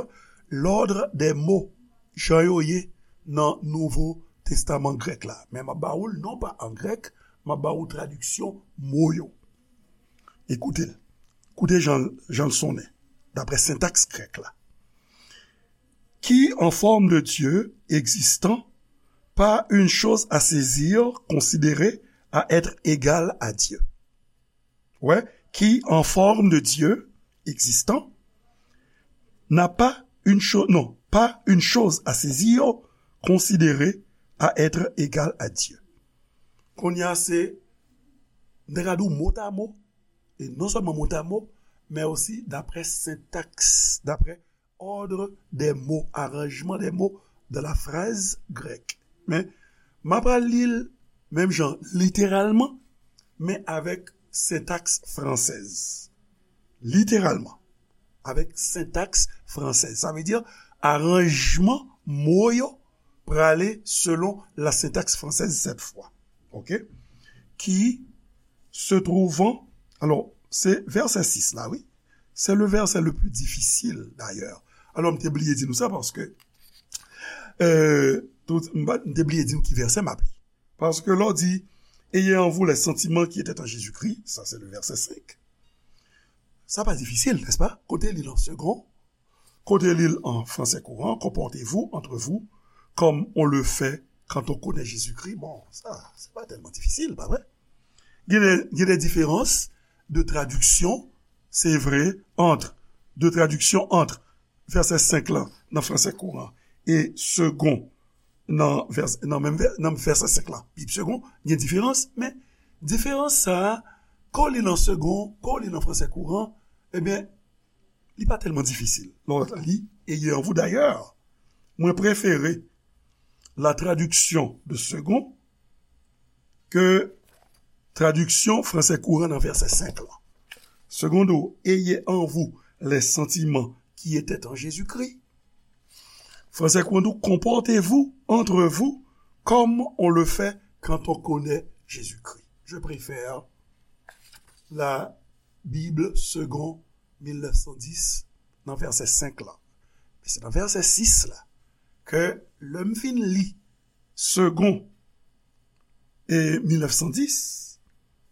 l'ordre des mots, jan yo ye nan Nouvo Testaman grèk la. Men m ap ba ou l non pa an grèk, m ap ba ou tradiksyon mo yo. Ekoute l. Koute jan, jan l sonnen, daprè sentaks grèk la. Qui, en forme de Dieu existant, pas une chose à saisir, considérée à être égale à Dieu. Ouais, qui, en forme de Dieu existant, n'a pas une chose, non, pas une chose à saisir, considérée à être égale à Dieu. Kounye a se, m te ka di w motamo, e non sèlman motamo, men osi daprè sentaks, daprè ordre des mots, arrangement des mots de la phrase grecque. Men, m ap pral li l menm jan, literalman, men avèk sentaks fransèz. Literalman, avèk sentaks fransèz. Sa vle di, aranjman mo yo prale selon la syntaxe française cette fois. OK? Qui se trouvant, alors, c'est verset six là, oui. C'est le verset le plus difficile, d'ailleurs. Alors, m te bliye di nou sa paske, euh, tout, m pa- m te bliye di nou ki vèsè m ap li. Paske lè w di, ayez en vous les sentiments qui étaient en Jésus-Christ, ça c'est le verset cinq. Sa pa difisil, n'est-ce pas? Kote li nan segon, kote li an fransè kouran, comportez-vous entre vous comme on le fait quand on connaît Jésus-Christ. Bon, sa, se pa tèlman difisil, pa vre? Gen de, gen de diferans de tradiksyon, se vre, ant, de tradiksyon ant vèsè senk lan nan fransè kouran e segon nan vèsè, nan menm vè- nan vèsè senk lan, Bib segon, gen diferans, men diferans sa a, ke w li nan segon, ke w li nan fransè kouran, ebyen, li pa tèlman difisil. Lè w li, ayez en vous d'ailleurs, mwen prefere la traduction de second ke tradiksyon fransè kouran nan vèsè senk lan. Segon di w, ayez en vous les sentiments qui étaient en Jésus-Christ. Fransè kouran di w, comportez-vous entre vous comme on le fait quand on connaît Jésus-Christ. Je préfère la Bible segon mil nèf san dis nan vèsè senk lan. Men se nan vèsè sis la ke lè m fin li segon e mil nèf san dis,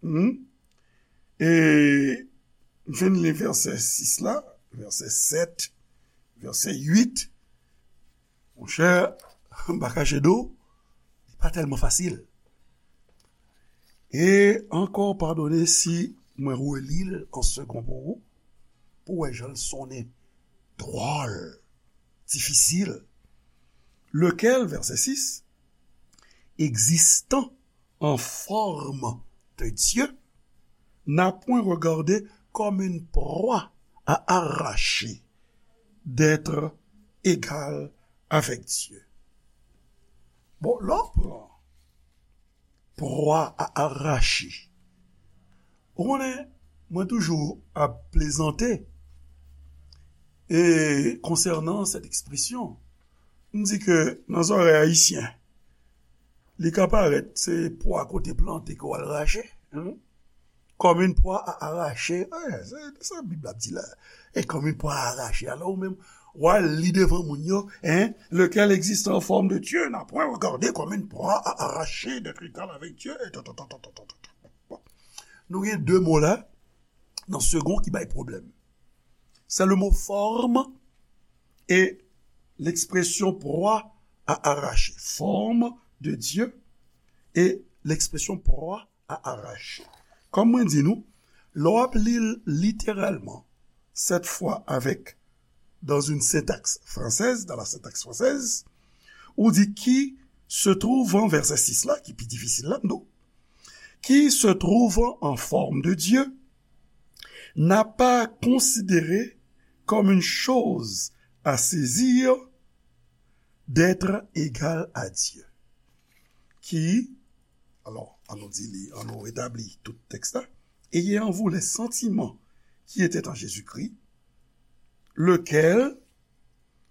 hmm, e m fin li vèsè sis la, vèsè sèt, vèsè uit, monchè, m pa kache di w, li pa tèlman fasil. E ankò, padone si mwen reli l an segon pou ou, pou w wè jan l sonnen dwòl, difisil. Lequel, verset six, existant en forme de Dieu, n'a point regardé comme une proie à arracher d'être égal avec Dieu. Bon, lè w pran proie à arracher, ou konnen, mwen toujou ap plezante e konsènan sèt ekspresyon. M di ke nan zòrèy ayisyen, li ka parèt se pwa kote plante ke w al rache, hein? Comme une proie à arracher. Wi, se sa Bib la ap di la. Et comme une proie à arracher. Alò, ou menm, w al li devan moun yo, hein? Lequel existe en forme de Dieu n'a point regardé comme une proie à arracher d'être égal avec Dieu. Et tout, tout, tout. Bon. Nou gen de mo la, nan segon ki bay pwoblèm. C'est le mot forme et l'expression proie à arracher. Forme de Dieu et l'expression proie à arracher. Kòm mwen di nou, lè w ap li l literalman, cette fois avec, dans une syntaxe française, dans la syntaxe française, ou di qui se trouvant, vèsè sis la, ki pi difisil la, m di w, qui se trouvant en forme de Dieu, n'a pas considéré comme une chose à saisir d'être égal à Dieu. Qui, alors, annou di li, annou retabli tout tèks la. Ayez en vous les sentiments qui étaient en Jésus-Christ, lequel,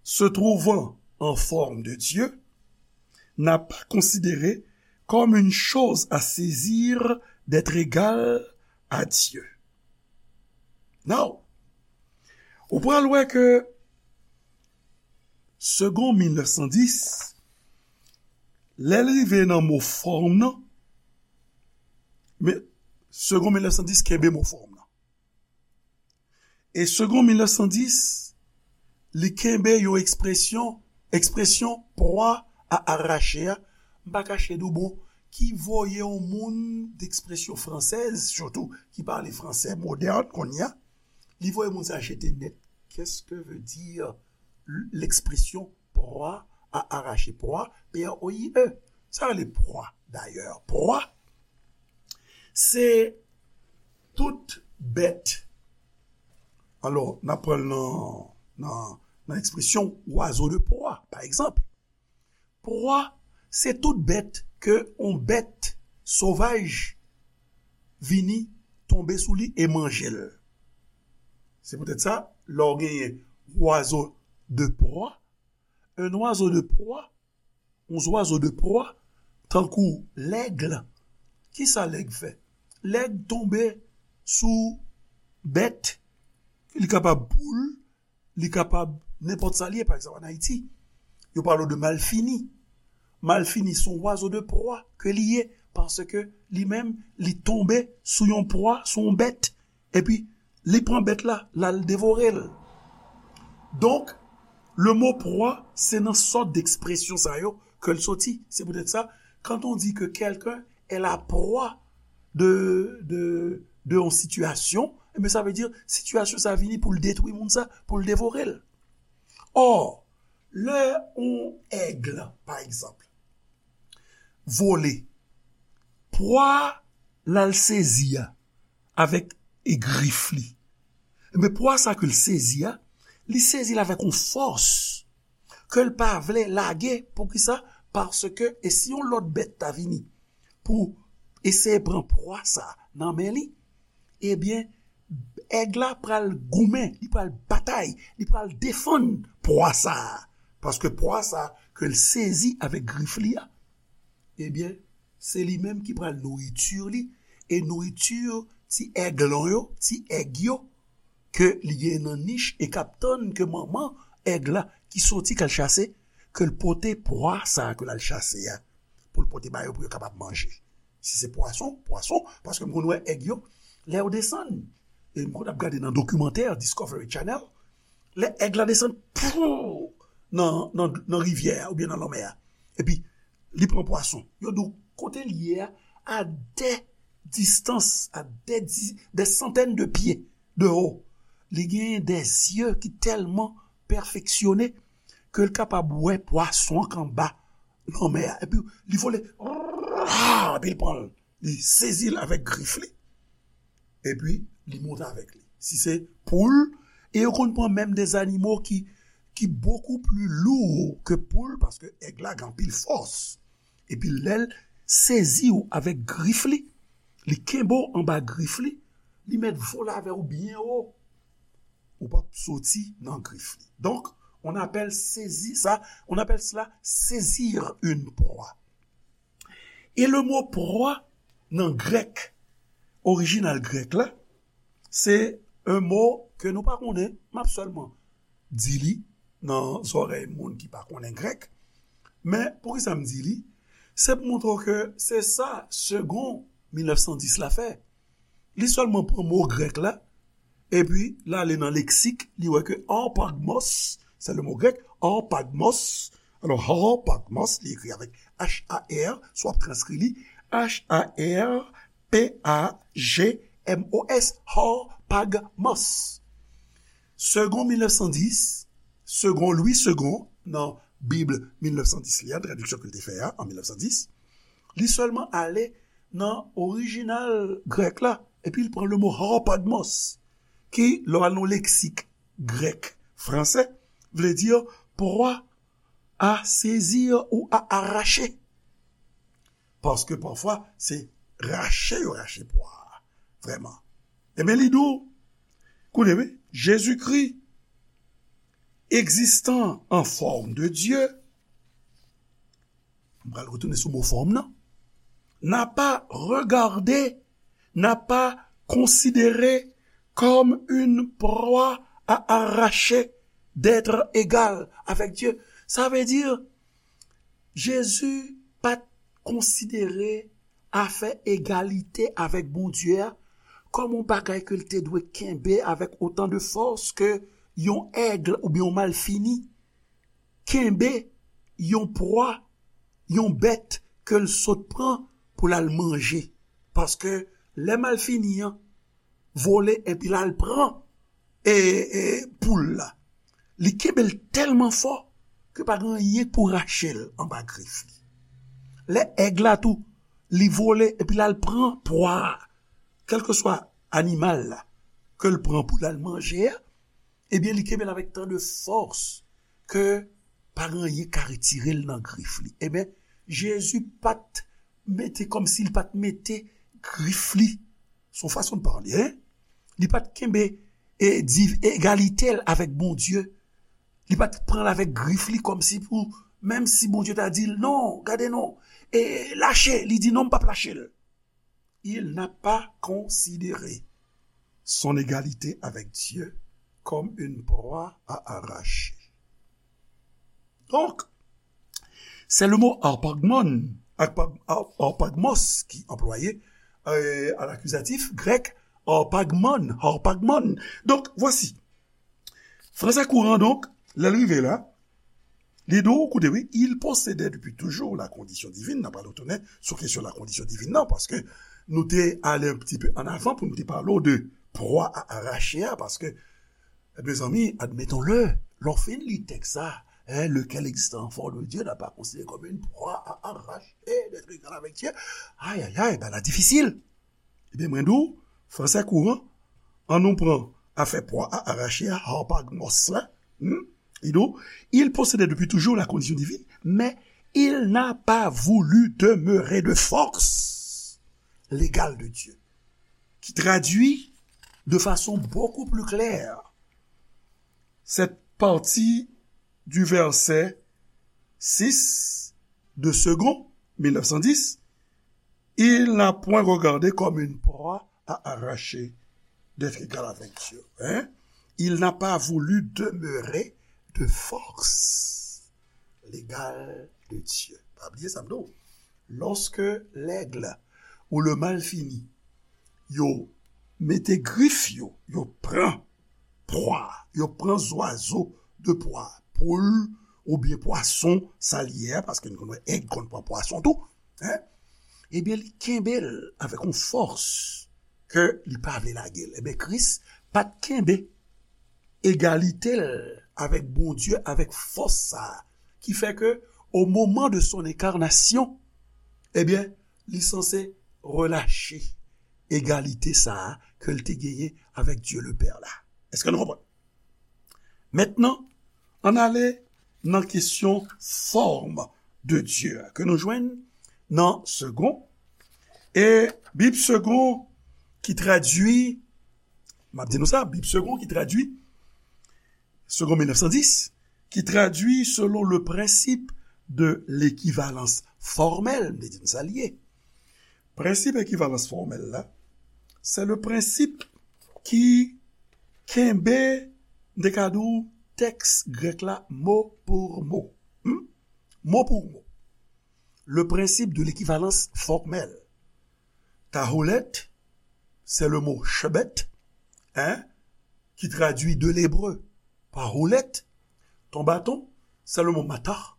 se trouvant en forme de Dieu, n'a pas considéré comme une chose à saisir d'être égal à Dieu. Now, ou pral wè ke segon mil nèf san dis, lè l rive nan mo fòm nan, men segon mil nèf san dis kenbe mo fòm nan. E segon mil nèf san dis, li kenbe yon ekspresyon, ekspresyon proie à arracher a. M pa kache di w, bon, ki voye yon moun d'expression française, sitou ki pale fransè modèn kounye a, li voye moun sa jete nèt. Qu'est-ce que veut dire l'expression proie à arracher? Proie, P R O I E. Sa rele proie, dayè. Proie, se tout bèt. Alò, n ap pran l nan, nan, nan ekspresyon oiseau de proie, pa egzanp. Pwa, se tout bèt ke yon bèt sovaj vini tonbe sou li e manje l. Se poutèt sa, lè w genyen oiseau de proie, un oiseau de proie, yon zwazo de pwa, tankou lèg, kisa lèg fè? Lèg tonbe sou bèt, li kapab poul, li kapab nenpòt sa li ye, pa egzanp, ann Ayiti, yo pale w de malfini. Malfini se yon oiseau de proie ke li ye, paske li menm, li tonbe sou yon pwa, sou yon bèt, epi li pran bèt la, l al devore l. Donk, le mot proie, se nan sòt de ekspresyon sa yo ke l soti. Se poutèt sa, quand on dit que quelqu'un est la proie de, de, de yon sitiyasyon, ebyen, sa vle di, sitiyasyon sa vini pou l detwi moun sa, pou l devore l. Ò, lè yon èg, pa egzanp, vole, pwa l al sezi a avèk e grif li. Ebyen, pwa sa ke l sezi a, li sezi l avèk yon fòs ke l pa vle lage. Poukisa? Paske, e si yon lòt bèt ta vini pou eseye pran pwa sa nan men li, ebyen, èg la pral goumen, li pral batay, li pral defann pwa sa a. Paske pwa sa a ke l sezi avèk grif li a, ebyen, se li menm ki pral nouriti li, e nouriti ti èglon yo, ti èg yo, ke li gen nan nich e k ap tann ke manman èg la ki soti k al chase, ke l pote pwa sa a ke l al chase a, pou l pote ba yo pou yo kapab manje. Si se pwason, pwason, paske m konn wè èg yo, lè yo desann, e m konn ap gade nan dokimantè Discovery Channel, lè èg la desann, pou, nan, nan, nan rivyè a oubyen nan lanmè a, epi li pran pwason. Yo di w kote l ye a, a dè distans, a dè di, dè santèn de pye de wo. Li genyen dè zye ki tèlman pèfeksyone ke l kapab wè pwason an k anba lanmè a. Epi li vole, epi l pran l, li sezi l avèk grif li, epi li monte avèk li. Si se poul, e yo konn pran menm de zanimo ki, ki bokou pli lou ke poul, paske èg la gen anpil fòs. Epi lè l sezi w avèk grif li, li kenbe w anba grif li, li mèt vole avè w byen wo. Ou p ap soti nan grif li. Donk, on appelle saisir ça, on appelle cela saisir une proie. E le mot proie, nan grèk, orijinal grèk la, se un mot ke nou pa konnen, m ap sèlman di li nan zòrèy moun ki pa konnen grèk. Men, poukisa m di li? Se pou montre w ke se sa Segond mil nèf san dis la fè. Li sèlman pran mo grèk la, epi l ale nan leksik, li wè ke harpagmos, se le mo grèk, harpagmos. Alò, harpagmos, li ekri avèk H A R, si w ap transkri li, H A R P A G M O S, harpagmos. Segond mil nèf san dis, Segond, Louis Segond, nan Bib mil nèf san dis li a, tradiksyon ke l te fè a, an mil nèf san dis, li sèlman ale nan orijinal grèk la, epi l pran le mo harpagmos, ki, lè w al nan leksik grèk fransè, vle di pwa a sezi ou a arache. Paske pafwa, se rache yo rache pwa a. Vrèman. Ebyen, li di w, koute, wi, Jezikri, existant en forme de Dieu, m pral retounen sou mo fòm nan, n'a pas regardé, n'a pas considéré comme une proie à arracher d'être égal avec Dieu. Sa vle di, Jezi pa t konsidere afè egalite avèk Bondye a kòm yon bagay ke l te dwe kenbe avèk otan de fòs ke yon èg oubyen yon malfini kenbe yon pwa, yon bèt ke l sot pran pou l al manje. Paske lè malfini an vole epi l al pran e, e poul la, li kenbe l tèlman fò ke pa gen anyen k pou rache l anba grif li. Lè èg la tou, li vole epi l al pran pwa a, kèlkeswa animal la ke l pran pou l al manje a, Ebyen, li kenbe l avèk tan de fòs ke pa gen anyen ka retire l nan grif li. Ebyen, Jezi pa t mete, kòmsi li pa t mete grif li, se yon fason de pale, en? Li pa t kenbe e di egalite l avèk Bondye. Li pa t pran l avèk grif li kòmsi pou, menm si Bondye ta di l, "Non, gade non, e lache," li di, "Non, m p ap lache l." Il n'a pas considéré son égalité avec Dieu comme une proie à arracher. Donc, c'est le mot harpagmon, harpag- har- harpagmos qui est employé euh, à l'accusatif grec harpagmon, harpagmon. Donc, voici. Français courant, donc, lè l rive la, li di w, koute, wi, il possédait depuis toujours la condition divine. N ap retounen sou kesyon la condition divine nan, paske nou te ale un petit peu en avant pou nou te pale w de proie à arracher a, paske, mezanmi, admettons-le, lè w fin li tèks sa, hein, lequel existe en forme de Dieu n'a pas considéré comme une proie à arracher d'être égal avec Dieu. Ay, ay, ay, bagay la difisil. Ebyen, mwen di w, français courant, an nou pran afè proie à arracher a, harpagmos la, hmm? Li di w, il possédait depuis toujours la condition divine, mais il n'a pas voulu demeurer de force l'égal de Dieu, qui traduit de façon beaucoup plus claire cette partie du verset six de Second mille neuf cent dix, il n'a point regardé comme une proie à arracher d'être égal avec Dieu. Hein? Il n'a pas voulu demeurer de force l'égal de Dieu. Pa bliye sa m di w. Lorsque l'aigle ou le malfini, yo mete grif yo, yo pran pwa, yo pran zwazo de pwa, poul oubyen pwason, sa l ye a, paske nou konn wè èg konn pran pwason tou, en? Ebyen, li kenbe l avèk yon fòs ke li pa vle lage l. Ebyen, Kris pa t kenbe egalite l avèk Bondye, avèk fòs sa a, ki fè ke, au moment de son incarnation, ebyen, li sanse relache egalite sa a ke l te genyen avèk Dye le Pè la. Èske nou konprann? Mentnan, ann ale nan kesyon fòm de Dye a ke nou jwenn nan Segond. E Bib Segond ki tradui, m ap di nou sa, Bib Segond ki tradui, Segond mil nèf san dis, ki tradui selon le principe de l'équivalence formelle, m te di nou sa l ye. Prensip ekivalans fòmèl la, se le prensip ki kenbe, m te ka di w, tèks grèk la mo pou mo. Hmm? Mo pou mo. Le principe de l'équivalence formelle. Taholet, c'est le mot chebet, hein, qui traduit de l'hébreu par houlette. Ton bâton, c'est le mot matah,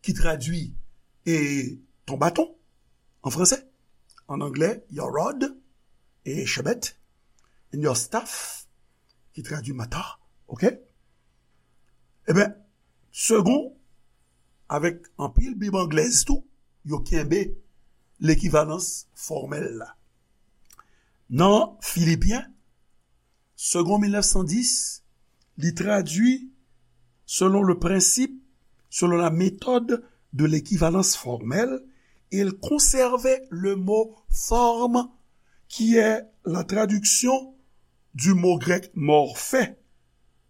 qui traduit et ton bâton en français. En anglais, your rod et chebet, and your staff, qui traduit matah, ok? Ebyen, Segond, avèk anpil Bib anglèz tou, yo kenbe lekivalans fòmèl la. Nan Filipyen, Segond mil nèf san dis, li tradui selon le principe, selon la méthode de l'équivalence formelle, il conservait le mot forme, qui est la traduction du mot grec morphe.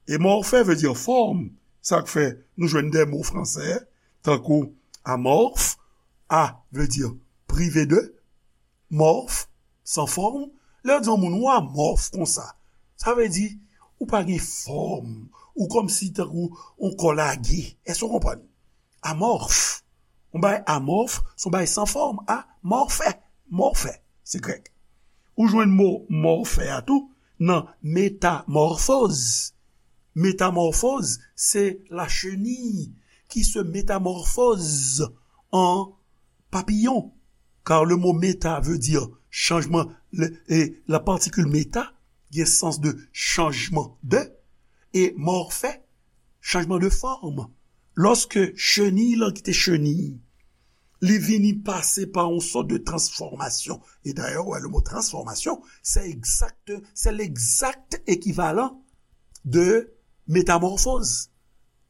E morphe vle di fòm. Sa k fè nou jwenn de mo fransè, tankou amorphe, a vle di prive de, morphe, san fòm. Lè yo di yon moun ou amorphe konsa, sa vle di ou pa gen fòm, ou kòmsi tankou yon kò lage. Èske w konprann? Amorphe. Yon bagay amorphe, se yon bagay san fòm. Amorphe. Morphe. Se grèk. Ou jwenn mo morphe a tou nan métamorphose. Métamorphose, c'est la chenille qui se métamorphose en papillon. Car le mot méta veut dire changement, le- et la particule méta, gen sans de changement de, et morphe, changement de forme. Lòske cheniy lan ki te cheniy, li vini pase pa yon sòt de transformation. Et d'ailleurs, ouais, le mot transformation, c'est exact, c'est l'exact équivalent de métamorphose.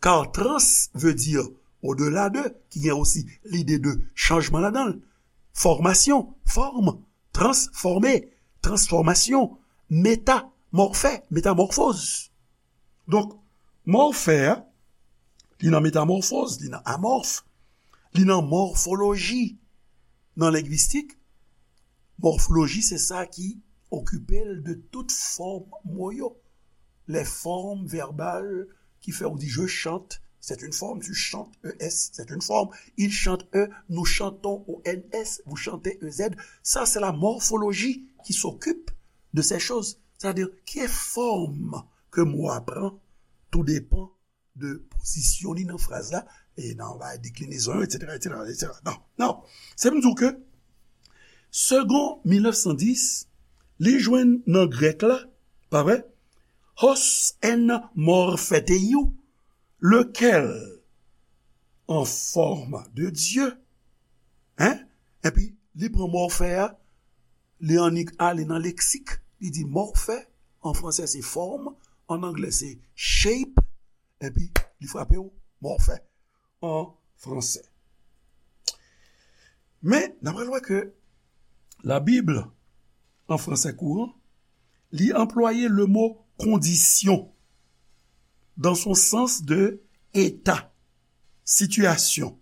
Car trans veut dire au-delà de, ki gen osi lide de chanjman ladan l. Formation, forme, transformer, transformation, méta, morphè, métamorphose. Donk, morphè a, li nan métamorphose, li nan amorphe, li nan mòfoloji. Nan lengwistik, mòfoloji se sa ki okipe l de tout fòm mo yo. Les formes verbales ki fè ou di je chante, c'est une forme, tu chantes, E S, c'est une forme, il chante, E, nous chantons, O N S, vous chantez, E Z. Sa se la morphologie qui s'occupe de ces choses. Sa vle di ki fòm ke mo a pran, tou depan de pozisyon li nan fraz la, e nan bay deklinezon yo, etsetera, etsetera, etsetera. Non, non. Se pou m di w ke Segond mil nèf san dis, li jwenn nan grèk la, pa vre? Hos en morpheteiou, lequel en forme de Dieu. Hein? Epi, li pran morphè a, li annik ale nan leksik, li di morphè, an fransè se forme, an anglè se shape, epi li frape w morphè an fransè. Men, n ap wè ke la Bible, an fransè kouran, li anplwaye le mo condition dans son sens de état, situation,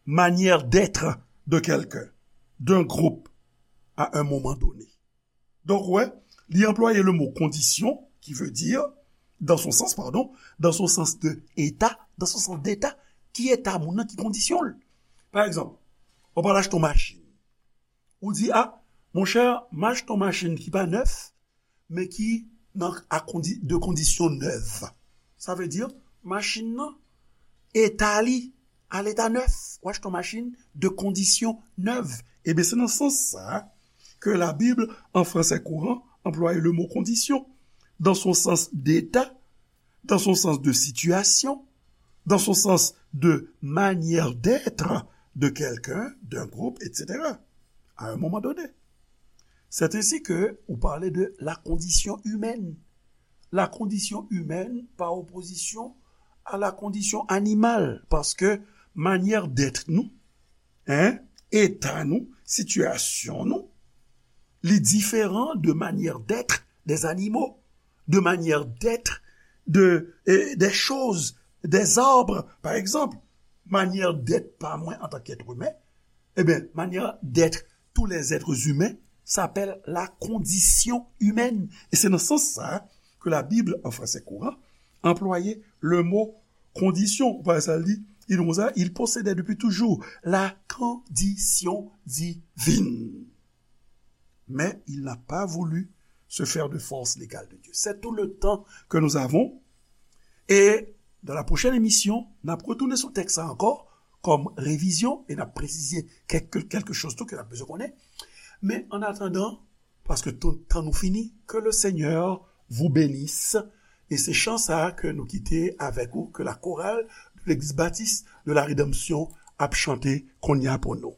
manière d'être de quelqu'un, d'un groupe, à un moment donné. Donk, wè, li anplwaye le mo condition, qui veut dire, dans son sens, pardon, dans son sens de état, dans son sens d'état, ki eta moun nan, ki kondisyon l. Pa egzanp, ou pral achte yon machin. Ou di, a, monchè, m achte yon machin ki pa nèf, men ki nan a kondi, de kondisyon nèv. Sa vle di, machin nan, eta li, a leta nèf. Ou achte yon machin de kondisyon nèv. Ebyen, se nan sans sa ke la Bible, an fransè kouran, anplwaye le mo condition dans son sens d'état, dans son sens de situation, dans son sens de manière d'être de quelqu'un, d'un groupe, et cetera. À un moment donné. C'est ainsi que ou parle de la condition humaine. La condition humaine par opposition à la condition animale, paske manyè d'èt nou, hein, eta nou, sitiyasyon nou, li diferan de manière d'être des animaux, de manière d'être de, eh, des choses, des arbres, par exemple. Manyè d'èt pa mwen antanke èt imen, ebyen, manyè d'èt tous les êtres humains s'appelle la condition humaine. E se nan sans sa ke la Bible, an fransè kouran, anplwaye le mo condition. Ou pa wè sa l di, li di konsa, il possédait depuis toujours la condition divine. Mais il n'a pas voulu se faire de force légale de Dieu. C'est tout le temps que nous avons. Et dans la prochaine émission, n ap retounen sou tèks sa ankò, kòm revizyon, e n ap presize kèk, kèk choz tou ke n ap bezwen konnen. Men, an atandan, paske tout tan nou fini, que le Seigneur vous bénisse. E se chan sa a ke nou kite avèk ou, ke la chorale de l'Église Baptiste de la Rédemption ap chante kounye a pou nou.